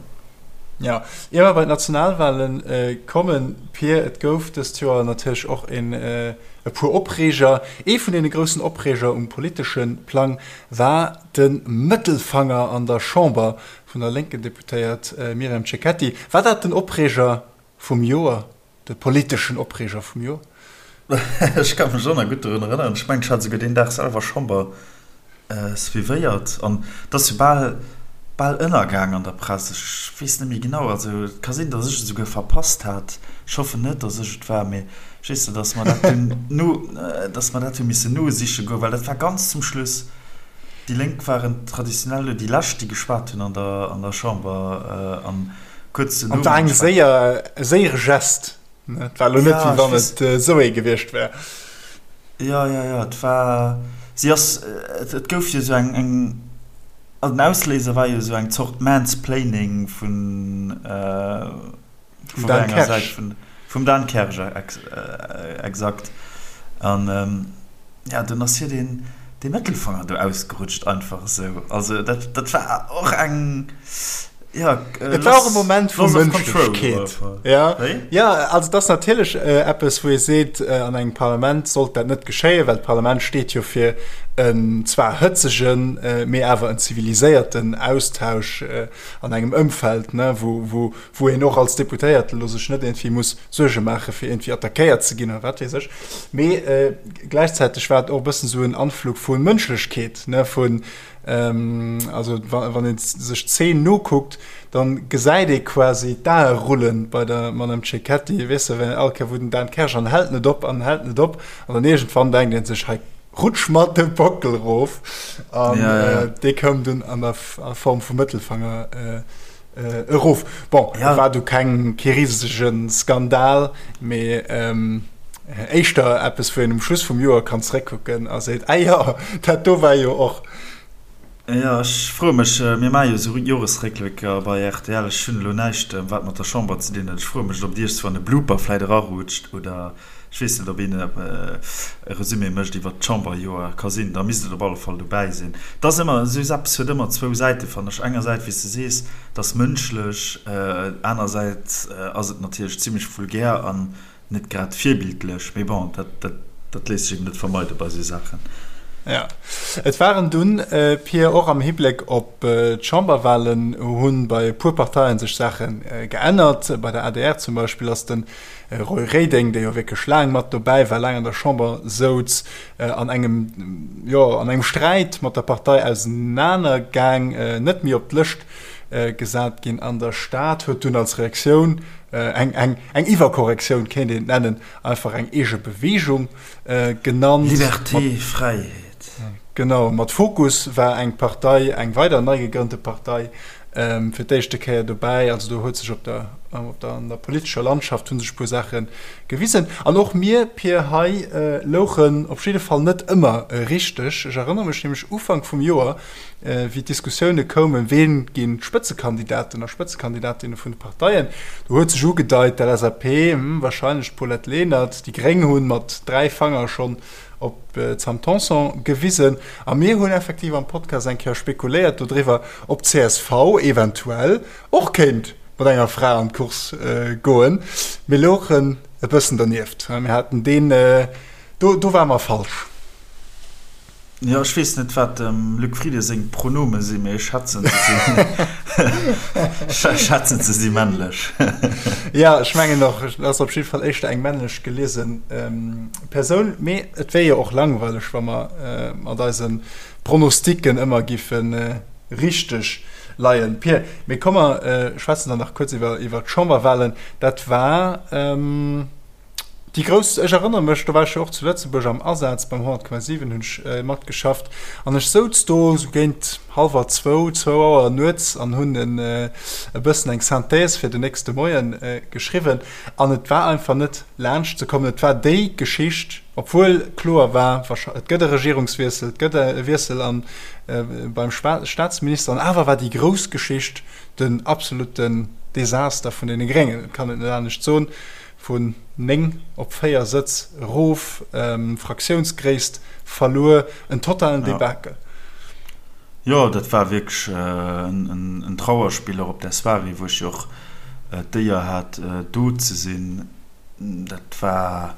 Jo, ier mer bei d'Nationalwale kommen, Pir, et gouf dëst Joer natierlech och en e puer Opreeger. Ee vun deene groussen Opreeger um politesche Plang war de Mëttelfanger an der Chamber vun der lénken Deputéiert Myriam Cecchetti. War dat den Opreeger vum Joer? De politeschen Opreeger vum Joer. Ech ka mech och nach gutt dorun erënneren. Ech mengen, ech hat esouguer deen Dag selwer Chamber suivéiert. An et ass jo bal, bal ënnergaang an der Press. Ech weess net méi genau. Also et ka sinn, datt ech et esouguer verpasst hat. Ech hoffen net, datt ech et war, mee ech weess net, datt mer dat dunn no, datt mer dat hu missen nosiche goen, well dat war ganz zum Schluss. Déi Lénk waren traditionell déi Lescht, déi geschwat hunn an der, an der Chamber. An Kuerz duerno. An war eng séier, e séiere Gest, ne? Et war elo net, wéi wann et esou ee gewiescht wär. Jo, jo, jo, et war, si ass, et gouf jo esou eng, eng, also den Ausléiser war jo esou eng Zort Mansplaining vun, vun Dan enger Säit vun, vum Dan Kersch, exakt. An, jo, dunn ass hir deen, dee Mëttelfanger do ausgerutscht, einfach esou. Also dat, dat war och eng. Ja, äh, Et war och e Moment vu Mënschlechkeet. Ja. Ja, also dat ass natierlech äh, eppes, wou ee seet, äh, an engem Parlament sollt dat net geschéien, well d'Parlament steet jo fir en zwar hëtzegen, äh, mee awer en ziviliséierten Austausch äh, an engem Ëmfeld, ne, wou, wou, wou een och als Deputéierte lo sech net iergendwéi muss Suerge maache fir iergendwéi attackéiert ze ginn oder wat weess ech. Mee äh, gläichzäiteg war et och e bëssen esou en Anflug vu Mënschlechkeet, ne, vun Also wann ee sech d'Zeen nokuckt, dann gesäit ee quasi d'Ae rullen bei der Madame Cecchetti, weess de, well all Kéier wou den Dan Kersch an hält net op an hält net op an dann iergendwann denkt ee sech, hei rutsch mer de Bockel erof an dee koum dunn an der Form vum Mëttelfanger erof. Bon, et war du keng, kee risege Skandal, mee éischter eppes, wou een um Schluss vum Joer kann zeréckkucken a seet, Ah jo, dat do war jo och. Jo, ech froe mech, mir maache jo esou Joresréckblécker bei rtl, ech hunn elo näischt, wat mat der Chamber ze dinn huet, ech froe mech, ob et iergendswann e Blooper vläit erarutscht oder Ech weess net, ob een e Resumé mécht iwwert d'Chamberjoer. Ka sinn, da misst et op alle Fall dobäi sinn. Et ass ëmmer, esou eppes huet ëmmer zwou Säiten, fannen ech. Engersäits, wéi s de sees, et ass mënschlech, anersäits ass et natierlech zimlech vulgär an net grad virbildlech. Mee bon, dat, dat, dat léisst sech eben net vermeide bei esou Saachen. Jo, et waren dunn, Pir, och am Hibléck op d'Chamberwahlen hu bei e puer Parteien sech Saache geännert. Bei der adr zum Beispill ass den Roy Reding, dee jo wierklech laang mat dobäi war, laang an der Chamber souz, an engem, jo, an engem Sträit mat der Partei ausenaner gaang, net méi op d'Lëscht gesat ginn an der Stad, huet dunn als Reaktioun, eng, eng, eng Iwwerkorrektioun kéint een et nennen, einfach eng eege Beweegung genannt. Liberté, Fräiheet. Genau, mat Fokus war eng Partei, eng weider nei gegrënnte Partei, fir d'éischte Kéier dobäi. Also do huet sech op der, op der, an der politescher Landschaft hu sech e puer Saache gewisen. An och mir, Pir, hei louchen op jidde Fall net ëmmer richteg. Ech erënnere mech nämlech Ufank vum Joer, wéi d'Diskussioune koumen, ween ginn d'Spëtzekandidaten a Spëtzekandidatinne vun de Parteien, do huet sech ugedeit, d'LSAP, wahrscheinlech d'Paulette Lenert, déi Gréng hu mat 3 Fanger schonn op d'Sam Tanson gewisen. A mir hunn effektiv am Podcast eng Kéier spekuléiert dodriwwer, ob d'CSV eventuell och kéint mat enger Fra an d'Course goen. Mir louchen e bëssen dernieft. Mir haten deen, do, do ware mer falsch. Jo, ech weess net, wat dem Luc Frieden seng Pronome sinn, mee ech schätzen, se sinn, ech schätzen, se si männlech. Jo, ech mengen och, et ass op jidde Fall éischter eng männlech geliese Persoun. Mee et wär jo och langweileg, wa mer mat eise Pronosticken ëmmer giffe richteg leien. Pir, mee komm mer schwätzen dann nach kuerz iwwer d'Chamberwahlen. Dat war. Déi grouss, ech erënnere mech, do war ech jo och zu Lëtzebuerg am Asaz, beim 100,7 hunn ech matgeschafft an ech souz do esou géint hallwer zwou, zwou Auer nuets an hunn e bëssen eng Synthèse fir den nächste Moie geschriwwen an et war einfach net laanscht ze kommen. Et war déi Geschicht, obwuel kloer war, et gëtt e Regierungswiessel, et gëtt e Wiessel an beim Staatsminister an awer war déi grouss Geschicht den absolutten Desaster vun deene Gréngen, et kann et net anescht soen. Vun 9 op 4 Sëtz erof, Fraktiounsgréisst verluer, en totalen Debakel. Jo, dat war wierklech en Trauerspill, och op där Soirée, wou ech jo och d'Éier hat, do ze sinn. Dat war,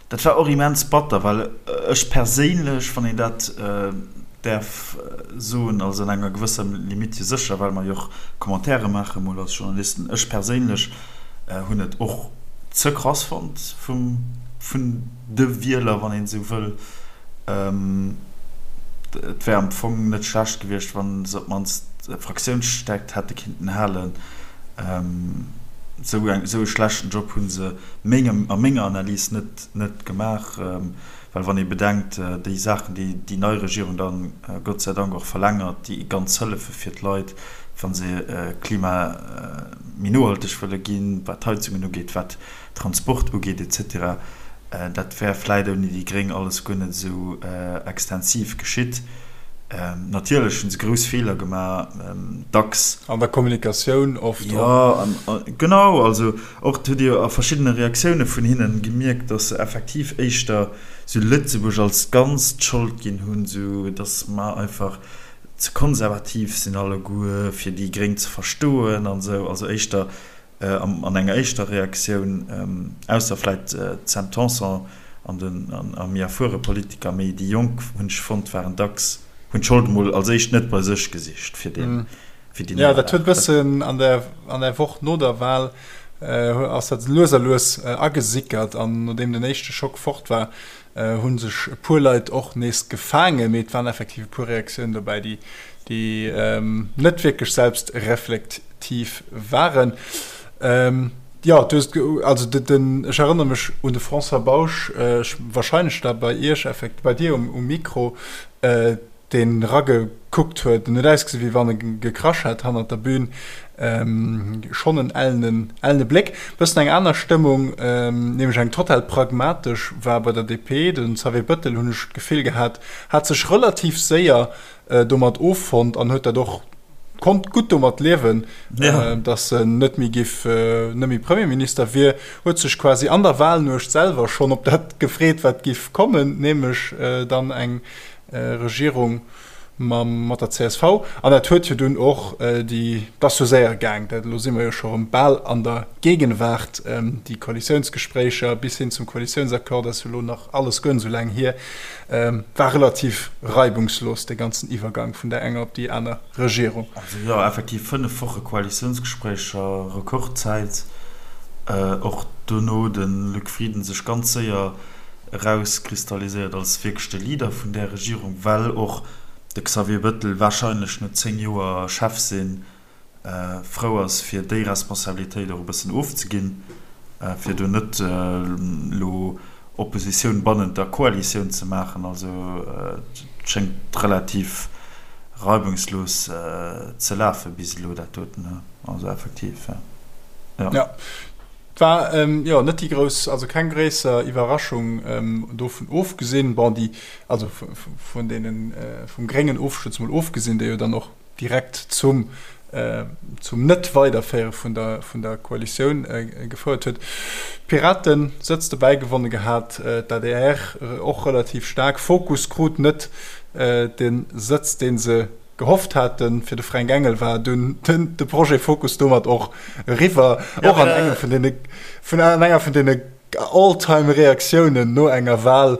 dat war och immens batter, well ech perséinlech, wann een dat däerf soen, also an enger gewësser Limite jo sécher, well mer jo och Commentaire maache mol als Journalisten, ech perséinlech Hunn et och ze krass fonnt vum vun de Wieler, wann een esou wëll. Et wär am Fong net schlecht gewiescht, wann se op d'mannst Fraktiounsstäerkt hätte kinnten halen. Esou eng esou e schlechten Job hu se mengem a menger Analys net net gemaach. Well wann ee bedenkt, déi Saachen, déi déi nei Regierung dann Gott sei Dank och verlängert, déi ganz Hëllefe fir d'Leit, wa se Klima méi nohalteg wëlle ginn, wat d'Heizungen ugeet, wat Transport ugeet et cetera, dat wär vläit ouni déi Gréng alles guer net esou extensiv geschitt. Natierlech hu se grouss Feeler gemaach, dacks. An der Kommunikatioun oft och. Jo, genau. Also Och hutt Dir a verschiddene Reaktioune vun hinnen gemierkt, datt se effektiv éischter sou Lëtzebuerg als Ganzt d'Schold ginn hunn, sou datt mer einfach ze konservativ sinn alleguer fir déi Gréng ze verstoen an esou. Also éischter an enger éischter Reaktioun, ausser vläit d'Sam Tanson an den a méi erfuere Politiker, mee déi Jonk hunn ech fonnt waren dacks, hunn d'Schold emol als éischt net bei sech gesicht fir deen fir déi Ja, dat huet bëssen an der, an der Woch no der Wahl ass dat lues a lues agesickert an nodeem den éischte Schock fort war, hu sech e puer Leit och nees gefaangen, mee et waren effektiv e puer Reaktiounen dobäi, déi, déi net wierklech selbstreflektiv waren. Jo, du hues, also den, ech erënnere mech un de François Bausch, ech, wahrscheinlech da bei Iech effekt, bei dir um, um Mikro, deen eragekuckt huet, en huet ausgesinn, wéi wann e gekrasch hätt hannert der Bühn, schonn en ellenen, ellene Bléck. Bëssen eng aner Stëmmung, nämlech eng total pragmatesch, war bei der DP. De Xavier Bettel, hunn ech d'Gefill gehat, hat sech relativ séier domat offonnt an huet dat och, konnt gutt domat liewen, datt en net méi giff, net méi Premierminister wier, huet sech quasi an der Wahlnuecht selwer schonn op dat gefreet, wat giff kommen, nämlech dann eng Regierung mam, mat der csv. An dat huet jo dunn och déi, et ass jo séier gaang, dat, elo si mer jo scho erëm bal an der Gegenwart, déi Koalitiounsgespréicher bis hin zum Koalitiounsaccord ass jo elo nach alles guer net esou laang hier, war relativ reibungslos, dee ganzen Iwwergang vun där enger op déi aner Regierung. Also jo, effektiv 5 Woche Koalitiounsgespréicher, Rekordzäit. Och dono de Luc Frieden sech ganz séier erauskristalliséiert als wierklech de Leader vun där Regierung, well och de Xavier Bettel wahrscheinlech no 10 Joer Chef sinn frou ass fir déi Responsabilitéit och e bëssen ofzeginn, fir do net elo Oppositioun bannent der Koalitioun ze maachen. Also et schéngt relativ reibungslos ze lafe bis elo dat doten, also effektiv, jo. Et war jo net déi grouss, also keng gréisser Iwwerraschung, dovun ofgesinn, bon déi, also vun deenen, vum gréngen Ofstuerz mol ofgesinn, dee jo dann och direkt zum, zum Net-Weiderféiere vun der, vun der Koalitioun gefouert huet. D'Piraten Sëtz dobäi gewonne gehat, d'ADR och relativ staark. Fokus krut net de Sëtz, dee se gehofft haten. Fir de Fränk Engel war dunn de Projet Fokus domat och eriwwer. Och an engem vun deene, vun an enger vun deene All-Time-Reaktiounen no enger Wahl.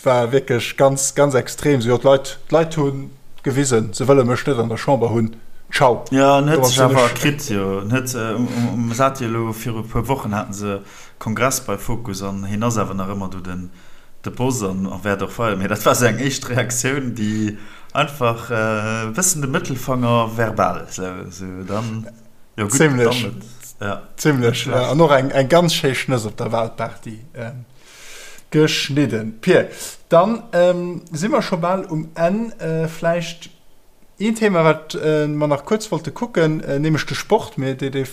war wierklech ganz, ganz extrem. Sou, jo, d'Leit, d'Leit hu gewisen, se wëlle mech net an der Chamber hunn. Ciao. Jo, en huet sech awer kritt, jo. En huet, um, se hate jo elo viru e puer Wochen haten se Kongress bei Fokus an hien ass awer nach ëmmer do den, de Boss an a wäert och weider. Mee dat war sou eng éischt Reaktioun, déi einfach e bëssen de Mëttelfanger verbal, sou, sou dann, jo gutt, dann net, ja. Zimlech, ja. An och eng, eng ganz schéi Schnëss op der Wahlparty. Geschnidden. Pir, dann si mer scho bal um Enn. Vläicht een Thema, wat mer nach kuerz wollte kucken, nämlech de Sport. Mee dee, dee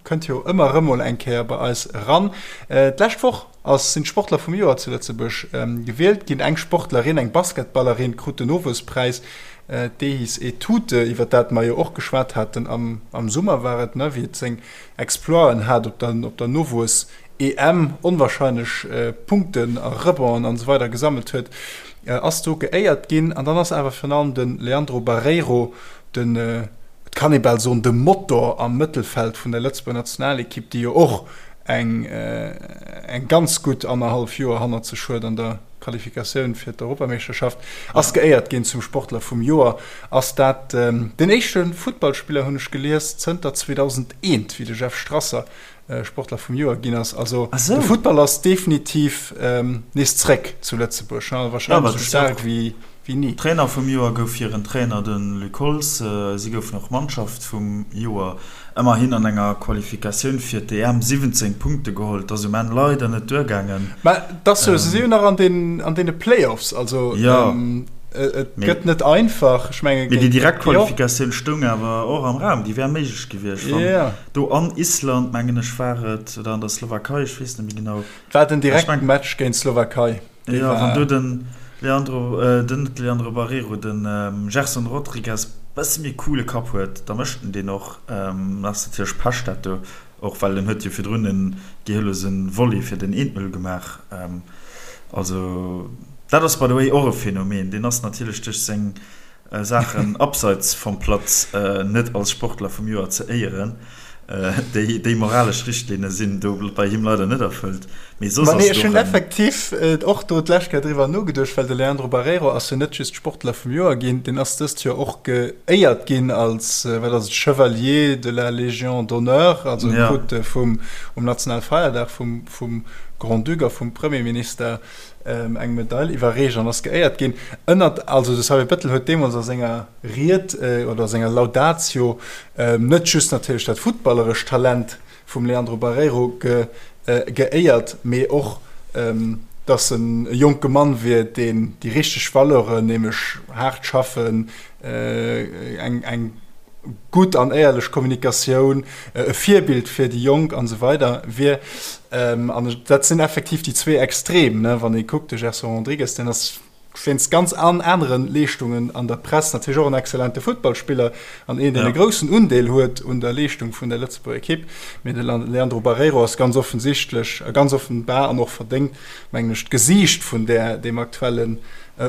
kënnt jo ëmmer erëm mol eng Kéier bei eis eran. D'lescht Woch ass, sinn d'Sportler vum Joer zu Lëtzebuerg gewielt ginn. Eng Sportlerin, eng Basketballerin, krut den Nowuesspräis. D'Ehis Etute, iwwer dat mer jo och geschwat haten am, am Summer war et, ne, wéi et seng Exploiten hat op der, op der Nowuess EM onwahrscheinlech Punkten a Rebonden an esou weider gesammelt huet, ass do geéiert ginn. An dann ass awer virun allem de Leandro Barreiro, den, et kann ee bal soen, de Motor am Mëttelfeld vun der Lëtzebuerger Nationalekipp, déi jo och eng eng ganz gutt annerhallef Joer hannert sech huet an der Qualifikatioun fir d'Europameeschterschaft, ass geéiert ginn zum Sportler vum Joer. Ass dat den éischte Futtballspiller, hunn ech gelies, zënter 2001, wéi de Jeff Strasser Sportler vum Joer ginn ass. Also de Futtball ass definitiv nees zréck zu Lëtzebuerg, wahrscheinlech esou staark wéi ni. Trainer vum Joer gouf hiren Trainer, de Luc Holtz. Si goufen och Mannschaft vum Joer. Ëmmerhin an enger Qualifikatioun fir d'EM 17 Punkte geholl. Et ass um Enn leider net duergaangen. Mä et ass jo, se si jo nach an deene Playoffs, also et gëtt net einfach. Ech menge géint. Mee déi direkt Qualifikatioun stoung awer och am Raum, déi wär méiglech gewiescht, wann do an Island, mengen ech, war et, oder an der Slowakei, ech weess net méi genau. Et war den direkten Match géint d'Slowakei. Jo, wann do den Leandro, den net Leandro Barreiro, den Gerson Rodrigues bësse méi coole Kapp huet, da mécht en deen och. Ass natierlech Pech dat do och, well en huet jo virdrun en gehirlose Volley fir den 1-0 gemaach. Also dat ass by the way och e Phänomen, deen ass natierlech duerch seng Saachen abseits vom Platz net als Sportler vum Joer ze éieren. Déi moralesch Richtlinne sinn do bei him leider net erfëllt. Mee soss ass et och en. Ech hunn effektiv och do d'lescht Kéier driwwer nogeduecht, well de Leandro Barreiro ass jo net just Sportler vum Joer ginn, deen ass dëst Joer och geéiert ginn als, wat ass et, Chevalier de la Légion d'honneur, also e krut vum, um Nationalfeierdag vum, vum Grand-Duc a vum Premierminister eng Medail iwwerreecht an ass geéiert ginn. Ënnert, also de Xavier Bettel huet deemools a senger Ried oder a senger Laudatio net just natierlech dat futtballerescht Talent vum Leandro Barreiro geéiert, mee och, datt en e jonke Mann wier, deen déi richteg Valeuren, nämlech haart schaffen, eng eng gutt an éierlech Kommunikatioun, e Virbild fir déi Jonk an esou weider wier. An dat sinn effektiv déi zwee Extrem, ne, wann ee kuckt, de Gerson Rodrigues, deen ass wéinst ganz an anere Leeschtungen an der Press natierlech och en exzellente Futtballspiller an een, deen e groussen Undeel huet un der Leeschtung vun der Lëtzebuerger Ekipp. Mee de Leandro Barreiro ass ganz offensichtlech a ganz offenbar an och verdéngt, mengen ech, d'Gesiicht vun där, deem aktuellen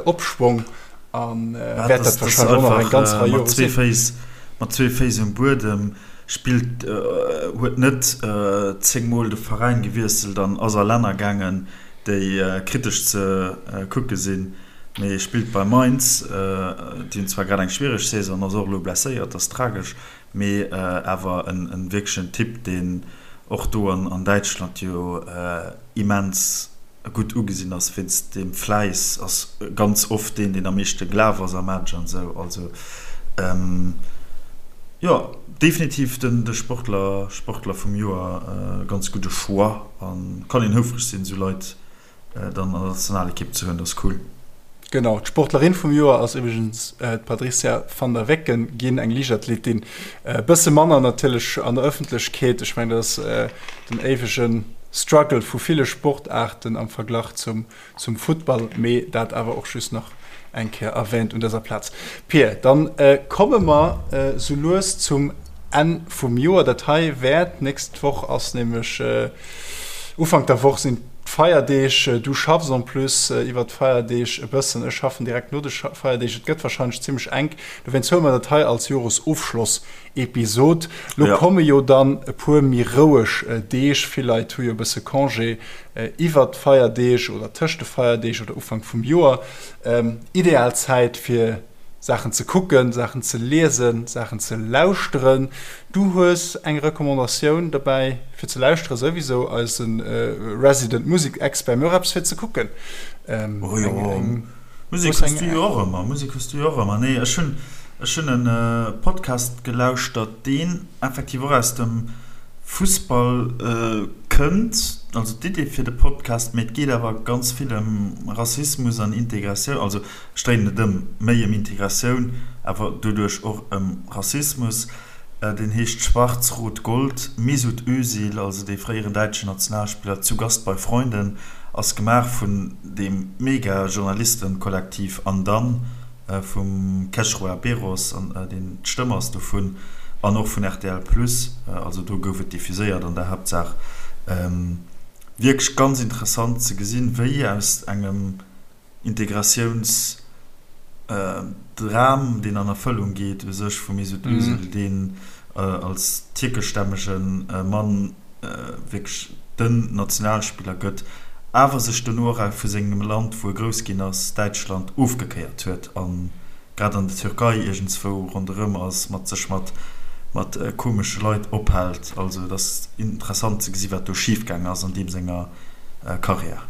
Opschwong. An wäert dat wahrscheinlech och nach eng ganz Rei Jore sinn. Mat zwee Féiss um Buedem spillt, huet net 10 mol de Veräin gewiesselt an ass a Länner gaangen, déi kritesch ze kucke sinn, mee spillt bei Mainz. Déi hunn zwar grad eng schwiereg Saison, ass och elo blesséiert, ass tragesch, mee awer en wierklechen Typ, deen och do an Däitschland jo immens gutt ugesinn ass wéinst deem Fläiss, ass ganz oft deen, deen am meeschte gelaf ass am Match an esou. Also jo, definitiv den de Sportler, Sportler vum Joer, ganz gudde Choix a kann een houfreg sinn, esou Leit dann an der Nationalekipp ze hunn, dat ass cool. Genau, d'Sportlerin vum Joer ass iwwregens d'Patricia van der Wecken ginn, eng Liichtathletin. E bësse manner natierlech an der Ëffentlechkeet. Ech mengen, dat ass den éiwege Struggle vu ville Sportaarten am Verglach zum zum Futtball, mee dat awer och just nach eng Kéier erwähnt un dëser Plaz. Pir, dann komme mer sou lues zum Enn vum Joer. Dat hei wäert, d'nächst Woch ass nämlech, Ufank der Woch sinn. D'Feierdeeg, du schaffs en plus iwwert d'Feierdeeg e bëssen, ech schaffen direkt no de Feierdeeg, et gëtt warscheinlech zimmlech enk. Dowéinst huele mer dat hei als Joresofschloss-Episod. Lo komme jo dann e puer méi roueg Deeg, vill Leit hu jo e bësse Congé iwwert d'Feierdeeg oder tëscht de Feierdeeg oder Ufank vum Joer. Ideal Zäit fir Saachen ze kucken, Saachen ze liesen, Saachen ze lauschteren. Du hues eng Recommandatioun dobäi fir ze lauschteren, souwisou eise Resident Musek-Expert, mee och eppes fir ze kucken. Oh jo, Musek hues du jo och ëmmer, Musek hues du jo och ëmmer. Nee, ech hunn, ech hunn e Podcast gelauschtert, deen effektiv och aus dem Fussball kënnt, also d'Idee fir de Podcast, mee et geet awer ganz vill ëm Rassismus an Integratioun, also Ech dréinen et ëm, méi ëm Integratioun, awer doduerch och ëm Rassismus. Deen heescht Schwarz Rot Gold. Mesut Özil, also dee fréieren däitschen Nationalspiller, zu Gast bei Freunden, ass gemaach vun deem Mega-Journalistenkollektiv An Dann vum Khesrua Beros, an deen d'Stëmm ass dovun, an och vun rtl Plus, also do gouf et diffuséiert an der Haaptsaach. Wierklech ganz interessant ze gesinn, wéi aus engem Integratiounsdram, deen an Erfëllung geet u sech vum Mesut Özil, deen als tierkeschstämmege Mann wierklech den Nationalspiller gëtt, awer sech dono och vu sengem Land, wou e grouss ginn ass, Däitschland, ofgekéiert huet a grad an der Türkei iergendswou ronderëm ass, mat sech mat mat komesche Leit ophält. Also et ass interessant ze gesi wat do schifgaang ass an deem senger Karriär.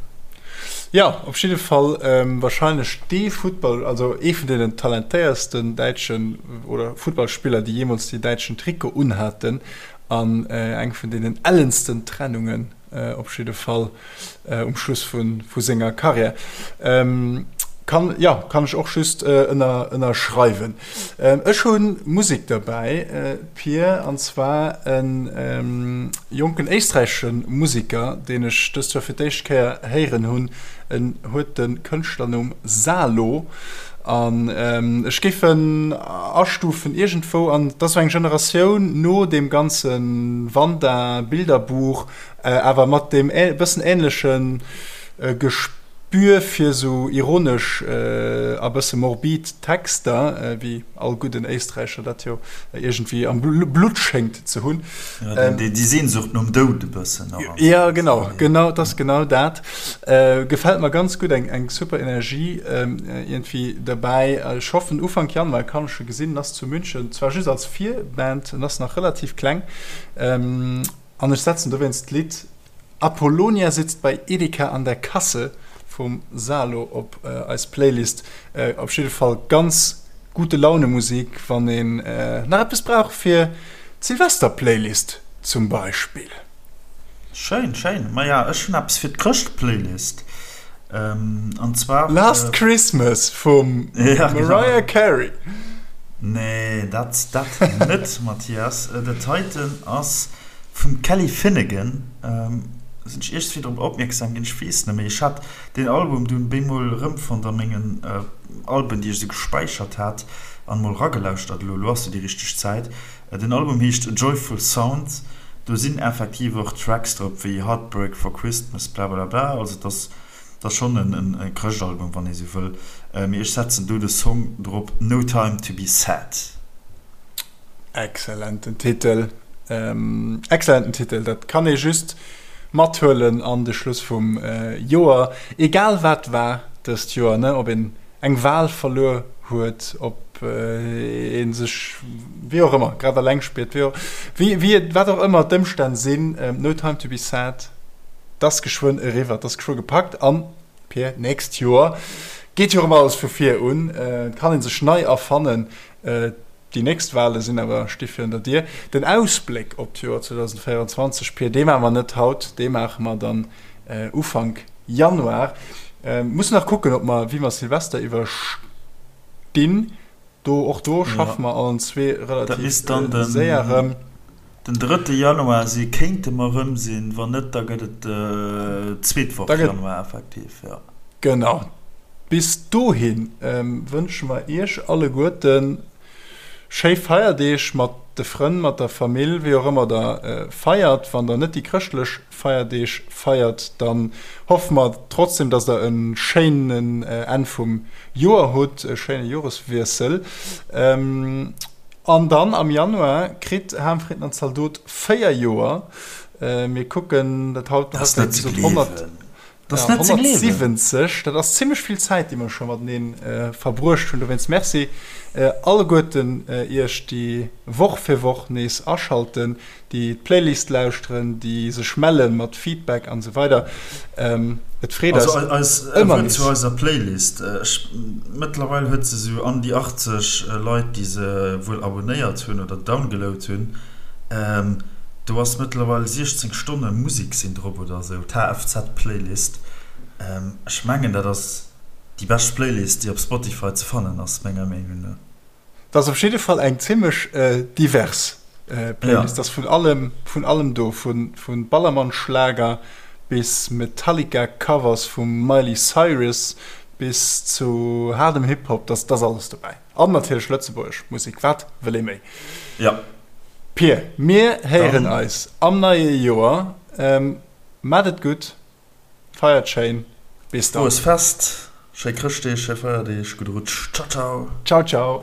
Jo, op jidde Fall wahrscheinlech dee Futtball, also ee vun deenen talentéiersten däitschen oder Futtballspiller, déi jeemools dee däitschen Trikot unhaten an eng vun deenen ellensten Trennungen op jidde Fall um Schluss vu senger Karriär. Kann, jo, kann ech och just ënnerschreiwen. Ech hu Musek derbäi, Pir, an zwar e jonken éisträichesche Museker, deen ech dëst Joer fir d'éischt Kéier héieren hunn. En huet de Kënschtlernumm Salo an ech géif en astufen iergendwou an, et ass esou eng Generatioun no deem ganze Wanda Bilderbuch, awer mat deem e bëssen änleche Gespür fir esou ironesch a bësse morbid Texter, wéi all gudden Éisträicher dat jo iergendwéi am Blutt schéngt ze hunn. Ja, déi Sehnsucht nom Doud e bëssen och. Ja, genau, genau, et ass genau dat. Gefält mer ganz gutt, eng super Energie iergendwéi derbäi. Ech hoffen, Ufank Januar kann ech e gesinn. En ass zu München, zwar just als Virband, en ass nach relativ kleng. An ech setzen dowéinst d'Lidd Apollonia sitzt bei Edeka an der Kasse vum Salo op eis Playlist. Op jidde Fall ganz gute Laune Musik, wann een nach eppes brauch fir d'Silvester-Playlist zum Beispill. Schéin, schéin. Maja, ech hunn eppes fir d'Chrëscht-Playlist. An zwar. Last Christmas vum Mariah Carey. Nee, dat dat net, Mathias. Dat heiten ass vum Kelly Finnigan. Sinn ech iergendwéi drop opmierksam ginn, ech weess net méi. Ech hat deen Album dunn bemol erëmfonnt a mengen Alben, déi ech esou gespäichert hat, an mol eragelauschtert. Elo, elo ass jo déi richteg Zäit. Den Album heescht Joyful Sound. Do sinn effektiv och Tracks drop wéi Heartbreak for Christmas, blablabla. Also et ass, et ass schonn en Chrëschtalbum, wann ee sou wëll. Mee ech setzen do de Song drop No Time To Be Sad. Excellenten Titel, excellenten Titel. Dat kann ee just mathuelen an de Schluss vum Joer. Egal wat war dëst Joer, ne, ob een eng Wahl verluer huet, ob ee sech wéi och ëmmer grad eleng spiert, wéi och, wéi, wéi et, wat och ëmmer d'Ëmstänn sinn, No Time To Be Sad, 't ass geschwënn eriwwer, 't ass geschwë gepackt an, Pir, d'nächst Joer geet jo erëm alles vu vir un, et kann ee sech nei erfannen, déi nächst Wahle sinn awer, sti virun der Dier. Den Ausbléck op d'Joer 2024, Pir, dee maache mer net haut, dee maache mer dann Ufank Januar. Mussen nach kucken, ob mer, wéi mer Silvester iwwerstinn. Do, och do schaffe mer allen zwee relativ séier erëm. Den drëtte Januar si kéinte mer erëm sinn, wann net, da gëtt et d'zweet Woch Januar effektiv, jo. Genau. Bis dohi wënsche mer Iech alleguerten. Schéi Feierdeeg mat de Frënn, mat der Famill, wéi och ëmmer der feiert. Wann der net déi chrëschtlech Feierdeeg feiert, dann hoffe mer trotzdem, dass der e schéinen Enn vum Joer hutt, e schéine Joreswiessel. An dann am Januar kritt Ham, Fritten an Zaldot 4 Joer. Mir kucken dat haut, haut wéi gesot 100. Dat ass net ze gleewen! 170, dat ass zimmlech vill Zäit, déi mer scho matenee verbruecht hunn. Dowéinst Merci alleguerten iech, déi Woch fir Woch nees aschalten, déi d'Playlist lauschteren, déi sech melle mat Feedback an esou weider. Et freet eis ëmmer nees. Wuert zu eiser Playlist, ech, mëttlerweil huet se esou an déi 80 Leit, déi se wuel abonéiert hunn oder downgeload hunn. Do ass mëttlerweil 16 Stonne Musik sinn drop oder esou, d'HFZ Playlist. Ech mengen dat ass déi bescht Playlist déi op Spotify ze fannen ass, menger Meenung no. Dat ass op jidde Fall eng zimmlech divers Playlist, ass vun allem vun allem do, vu Ballermann-Schlager bis Metallica Covers vum Miley Cyrus bis zu haardem Hip Hop, dat ass alles dobäi. An natierlech lëtzebuergesch Musek, wat wëll ee méi? Jo. Pir, mir héieren eis am neie Joer. Maat et gutt, feiert schéin, bis dann. Froes Fest, schéi Chrëschtdeeg, schéi Feierdeeg, gudde Rutsch, ciao ciao. Ciao ciao.